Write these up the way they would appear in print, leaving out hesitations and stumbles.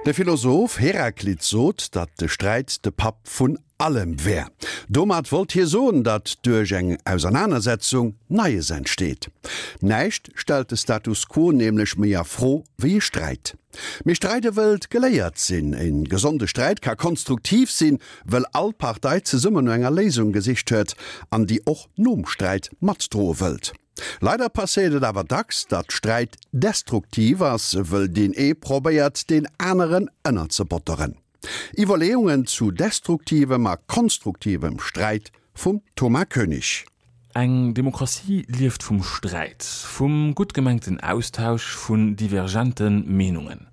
De Philosoph Heraklit sot, datt de Sträit de Papp vun allem wär. Domat wollt hie soen, datt duerch eng Ausernanersetzung Neies entsteet. Näischt stellt de Status quo nämlech méi a Fro wéi e Sträit. Mee Streide wëllt geléiert sinn. E gesonde Sträit ka konstruktiv sinn, wëll all Partei zesummen no enger Léisung gesicht huet an déi och nom Sträit matdroe wëllt. Leider passéiert et awer dacks, datt Sträit destruktiv ass, wëll deen ee probéiert, deen aneren ënnerzebotteren. Iwwerleeungen zu destruktivem a konstruktivem Sträit vum Thomas Koenig. Eng Demokratie lieft vum Sträit, vum gutt gemengten Austausch vun divergente Meenungen.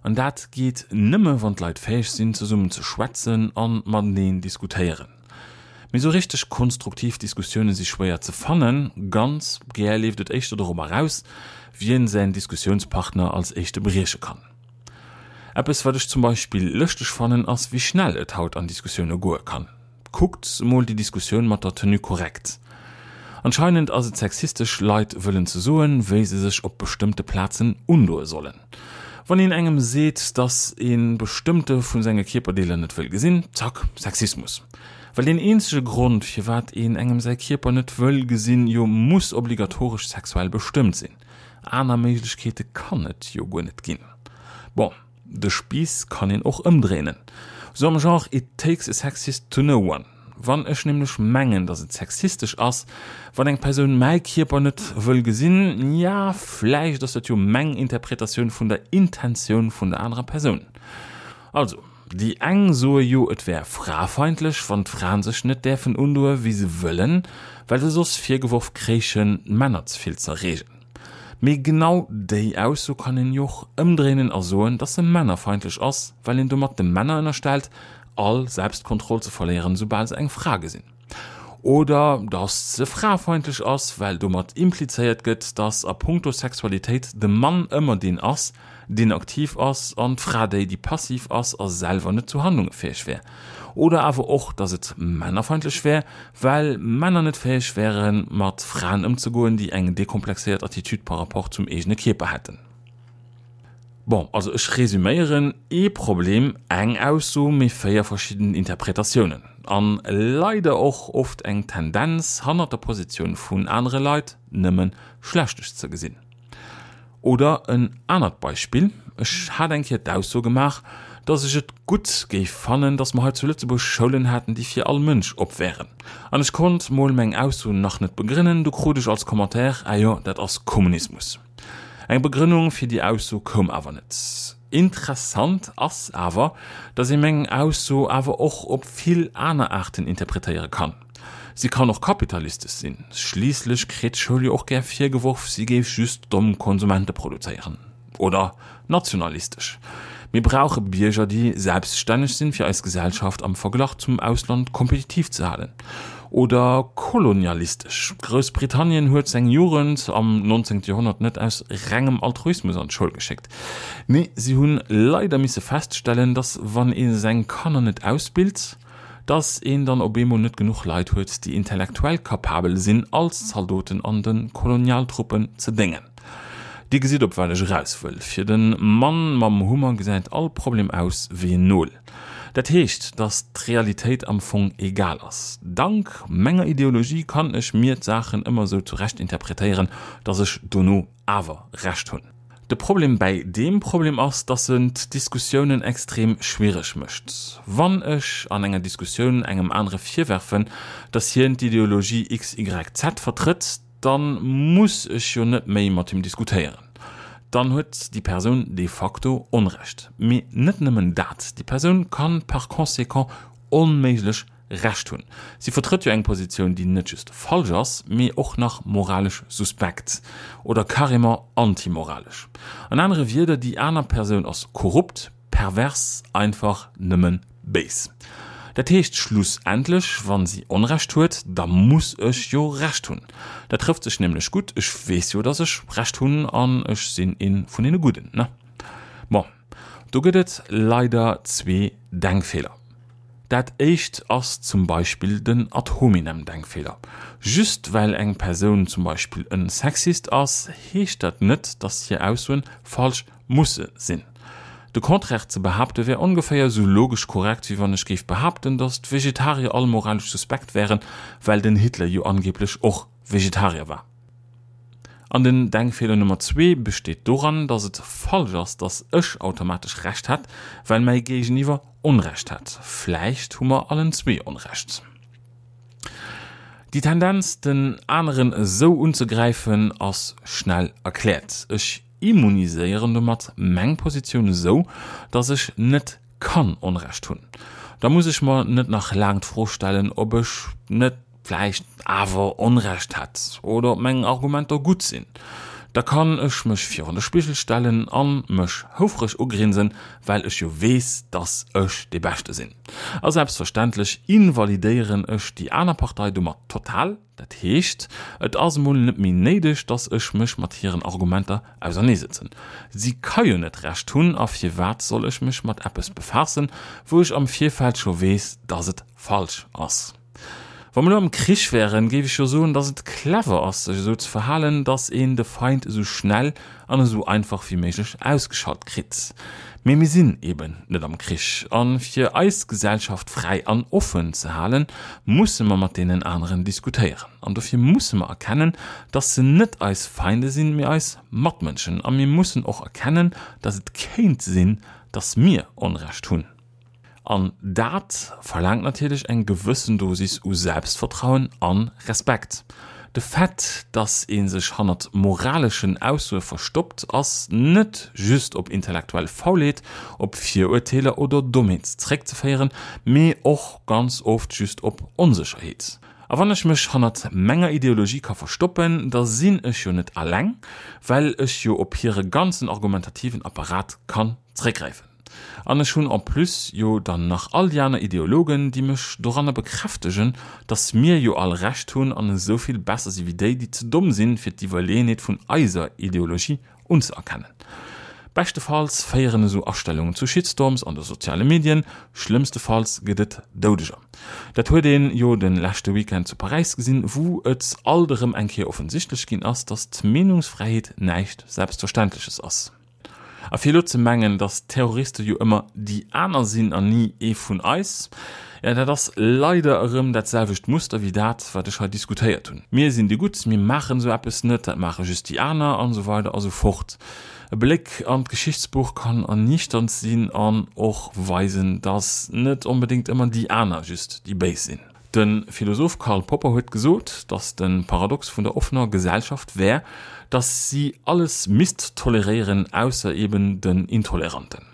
An dat geet nëmme wann d'Leit fäeg sinn zesummen ze schwätzen a mateneen diskutéieren. Mee sou richteg konstruktiv Diskussioune si schwéier ze fannen. Ganz gär leeft et éischter dorop eraus, wien säin Diskussiounspartner als éischte brieche kann. Eppes wat ech zum Beispill lëschteg fannen ass wéi schnell et haut an Diskussioune goe kann. Kuckt mol déi Diskussioun mat der Tenue correcte. Anscheinend ass et sexistesch Leit wëllen ze soen wéi se sech op bestëmmte Plazen undoe sollen. Wann een engem seet dass ee bestëmmte vu senge Kierperdeeler net wëll gesinn, zack, Sexismus. Well deen eenzege Grond firwat een engem säi Kierper net wëll gesinn jo muss obligatoresch sexuell bestëmmt sinn. Aner Méiglechkeete kann et jo guer net ginn. Bon, de Spiiss kann een och ëmdréinen. Sou am Genre it takes a sexist to know one. Wann ech nämlech mengen, datt et sexistesch ass, wann eng Persoun mäi Kierper net wëll gesinn, ja, vläicht ass dat jo meng Interpretatioun vun der Intentioun vun der anerer Persoun. Also, déi eng soe jo et wär frafeindlech, wann d'Fraen sech net däerfen undoe wéi se wëllen, well se soss virgeworf kréichen, d'Männer ze vill z'erreegen. Mee genau déi Ausso kann een jo och ëmdréinen a soen, dass se männerfeindlech ass, well een domat de Männer ënnerstellt, all Selbstkontroll ze verléieren, soubal se eng Fra gesinn. Oder dass se frafeindlech ass, well domat implizéiert gëtt, dass a punkto Sexualitéit de Mann ëmmer deen ass, deen aktiv ass an d'Fra déi, déi passiv ass a selwer net zu Handlunge fäeg wär. Oder awer och, dass et männerfeindlech wär, well Männer net fäeg wären, mat Fraen ëmzegoen, déi eng dekomplexéiert Attitude par rapport zum eegene Kierper hätten. Bon, also ech resüméieren, ee Problem, eng Ausso, mee 4 verschidden Interpretatiounen. An leider och oft eng Tendenz, hannert der Positioun vun anere Leit nëmme Schlechtes ze gesinn. Oder en anert Beispill, Ech hat eng Kéier d'Ausso gemaach, dass ech et gutt géif fannen, dass mer hei zu Lëtzebuerg Schoulen hätten, déi fir all Mënsch op wären. An ech konnt mol meng Ausso nach net begrënnen, du krut ech als Commentaire, Ah jo, dat ass Kommunismus. Eng Begrënnung fir déi Ausso koum awer net. Interessant ass awer, datt ee meng Ausso awer och op vill aner Aarten interpretéiere kann. Si kann och kapitalistesch sinn, schliisslech kritt d'Schoul jo och gär virgeworf, si géif just domm Konsumente produzéieren. Oder nationalistesch, Mir brauche Bierger, déi selbststänneg sinn, fir eis Gesellschaft am Verglach zum Ausland kompetitiv ze halen. Oder kolonialistesch, Groussbritannien huet seng Jugend am 19. Joerhonnert net aus rengem Altruismus an d'Schoul geschéckt. Nee, si hunn leider misse feststellen, dass wann ee seng Kanner net ausbilt, dass een dann op eemol net genuch Leit huet, déi intellektuell kapabel sinn, als Zaldoten an de Kolonialtruppen ze déngen. Dir gesitt, op wat ech eraus wëll, Fir de Mann mam Hummer gesäit all Problem aus wéi en Nol. Dat heescht, dass d'Realitéit am Fong egal ass. Dank menger Ideologie kann ech mir d'Saachen ëmmer esou zurecht interpretéieren, dass ech dono awer Recht hunn. De Problem bäi deem Problem ass, dass en d'Diskussiounen extrem schwiereg mécht. Wann ech an enger Diskussioun engem anere virwerfen, dass hien d'Ideologie XYZ vertrëtt, da muss ech jo net méi mat him diskutéieren. Dann huet déi Persoun de facto Onrecht. Mee net nëmmen dat, déi Persoun kann par conséquent onméiglech Recht hunn. Si vertrëtt jo eng Positioun, déi net just falsch ass, mee och nach moralesch suspekt oder carrément antimoralesch. An anere Wierder, déi aner Persoun ass korrupt, pervers, einfach nëmme béis. Dat heescht schlussendlech, wa si Onrecht huet, da muss ech jo Recht hunn. Dat trëfft sech nämlech gutt, ech weess jo, datt ech Recht hunn an ech sinn ee vun deene Gudden, ne? Bon, do gëtt et leider zwee Denkfeeler. Dat éischt ass zum Beispill den Ad-hominem-Denkfeeler. Just well eng Persoun zum Beispill en Sexist ass, heescht dat net, dass hir Aussoen falsch musse sinn. De Contraire ze behaapte wär ongeféier esou logesch korrekt, wéi wann ech géif behaapten, datt d'Vegetarier all moralesch suspekt wären, well den Hitler jo angeblech och Vegetarier war. An den Denkfeeler Nummer zwee besteet doran, datt et falsch ass, datt ech automatesch Recht hätt, well mäi Géigeniwwer Onrecht hätt. Vläicht hu mer allen zwee Onrecht. Déi Tendenz, den aneren esou unzegräifen, ass schnell erkläert. Ech immuniséieren domat meng Positioun esou, dass ech net kann Onrecht hunn. Da muss ech mer net nach laang d'Fro stellen, ob ech net vläicht awer Onrecht hätt oder ob meng Argumenter gutt sinn. Da kann ech mech virun de Spigel stellen a mech houfreg ugrinsen, well ech jo weess, dass ech dee Beschte sinn. A selbstverständlech invalidéieren ech déi aner Partei domat total. Dat heescht, et ass emol net méi néideg, dass ech mech mat hiren Argumenter auserneesëtzen. Si ka jo net Recht hunn, a firwat soll ech mech mat eppes befaassen, wou ech am Virfeld scho weess, dass et falsch ass? Wa mer elo am Krich wären, géif ech jo soen, dass et clever ass, sech esou ze verhalen, dass een de Feind esou schnell an esou einfach wéi méiglech ausgeschalt kritt. Mee mir sinn eben net am Krich. A fir eis Gesellschaft fräi an offen ze halen, musse mer mat deenen aneren diskutéieren. An dofir musse mer erkennen, dass se net eis Feinde sinn, mee eis Matmënschen. A mir mussen och erkennen, dass et kéint sinn, dass mir Onrecht hunn. An dat verlaangt natierlech eng gewëssen Dosis u Selbstvertrauen a Respekt. De Fait, dass ee sech hannert moraleschen Aussoe verstoppt, ass net just op intellektuell Faulheet, op Virurteeler oder Dommheet zeréckzeféieren, mee och ganz oft just op Onsécherheet. A wann ech mech hannert menger Ideologie ka verstoppen, da sinn ech jo net alleng, well ech jo op hire ganzen argumentativen Apparat kann zeréckgräifen. An ech hunn en plus jo dann nach all déi aner Ideologen, déi mech doranner bekräftegen, dass mir jo all Recht hunn an esou vill besser si wéi déi, déi ze domm sinn, fir d'Iwwerleeënheet vun eiser Ideologie unzëerkennen. Beschtefalls féieren esou Astellungen zu Shitstorms an de soziale Medien, schlëmmstefalls gëtt et Doudeger. Dat huet een jo de leschte Weekend zu Paräis gesinn, wou et alt erëm eng Kéier offensichtlech ginn ass, dass d'Meenungsfräiheet näischt Selbstverständleches ass. A fir elo ze mengen, datt Terroriste jo ëmmer déi aner sinn an ni ee vun eis, jo dat ass leider erëm dat selwecht Muster wéi dat, wat ech hei diskutéiert hunn. Mir sinn déi Gutt, mir maachen esou eppes net, dat maache just déi aner an esou weider a sou fort. E Bléck an d'Geschichtsbuch kann erniichternd sinn an och weisen, datt net onbedéngt ëmmer déi aner just déi Béis sinn. De Philosoph Karl Popper huet gesot, datt de Paradox vun der offener Gesellschaft wär, datt si alles misst toleréieren, ausser eben den Intoleranten.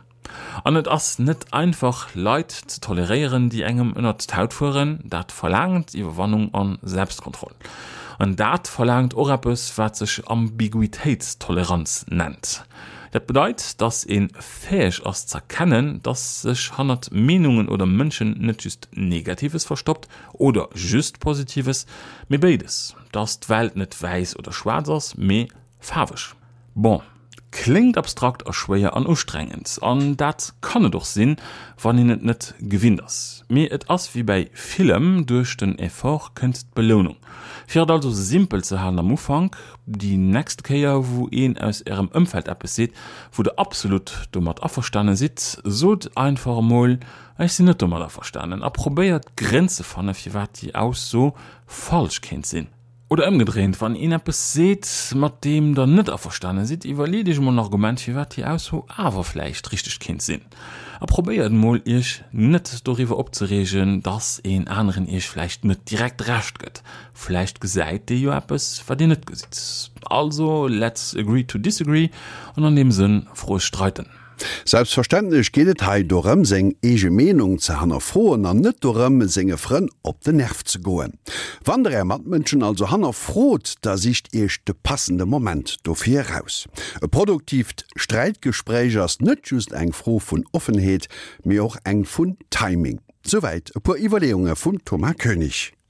An et ass net einfach, Leit ze toleréieren, déi engem ënnert d'Haut fueren. Dat verlaangt Iwwerwannung a Selbstkontroll. An dat verlaangt och eppes, wat sech Ambiguitéitstoleranz nennt. Dat bedeit, datt ee fäeg ass z'erkennen, datt sech hannert Meenungen oder Mënschen net just Negatives verstoppt oder just Positives, mee béides, datt d'Welt net wäiss oder schwaarz ass, mee faarweg. Bon, kléngt abstrakt a schwéier an ustrengend, an dat kann et och sinn, wann een et net gewinnt ass. Mee et ass wéi bäi villem, duerch den Effort kënnt d'Belounung. Fir et also simpel ze halen am Ufank, Déi nächst Kéier wou een aus ärem Ëmfeld eppes seet, wou der absolut domat averstane sidd, sot einfach emol, Ech sinn net domat averstanen a probéiert Grénn ze fanne firwat déi Ausso falsch kéint sinn. Oder ëmgedréint, wann een eppes seet, mat deem der net averstane sidd, iwwerleet iech emol en Argument firwat déi Ausso awer vläicht richteg kéint sinn. A probéiert emol iech net doriwwer opzereegen, dass een aneren iech vläicht net direkt Recht gëtt. Vläicht gesäit dee jo eppes, wat dir net gesitt. Also, let's agree to disagree an an deem Sënn froeg streiten. Selbstverständlech geet et hei dorëm, seng eege Meenung ze hannerfroen an net dorëm, senge Frënn op den Nerv ze goen. Wann der är Matmënschen also hannerfrot, da sicht iech de passende Moment dofir eraus. E produktiivt Sträitgespréich ass net just eng Fro vun Offenheet, mee och eng vun Timing. Souwäit e puer Iwwerleeunge vum Thomas Koenig.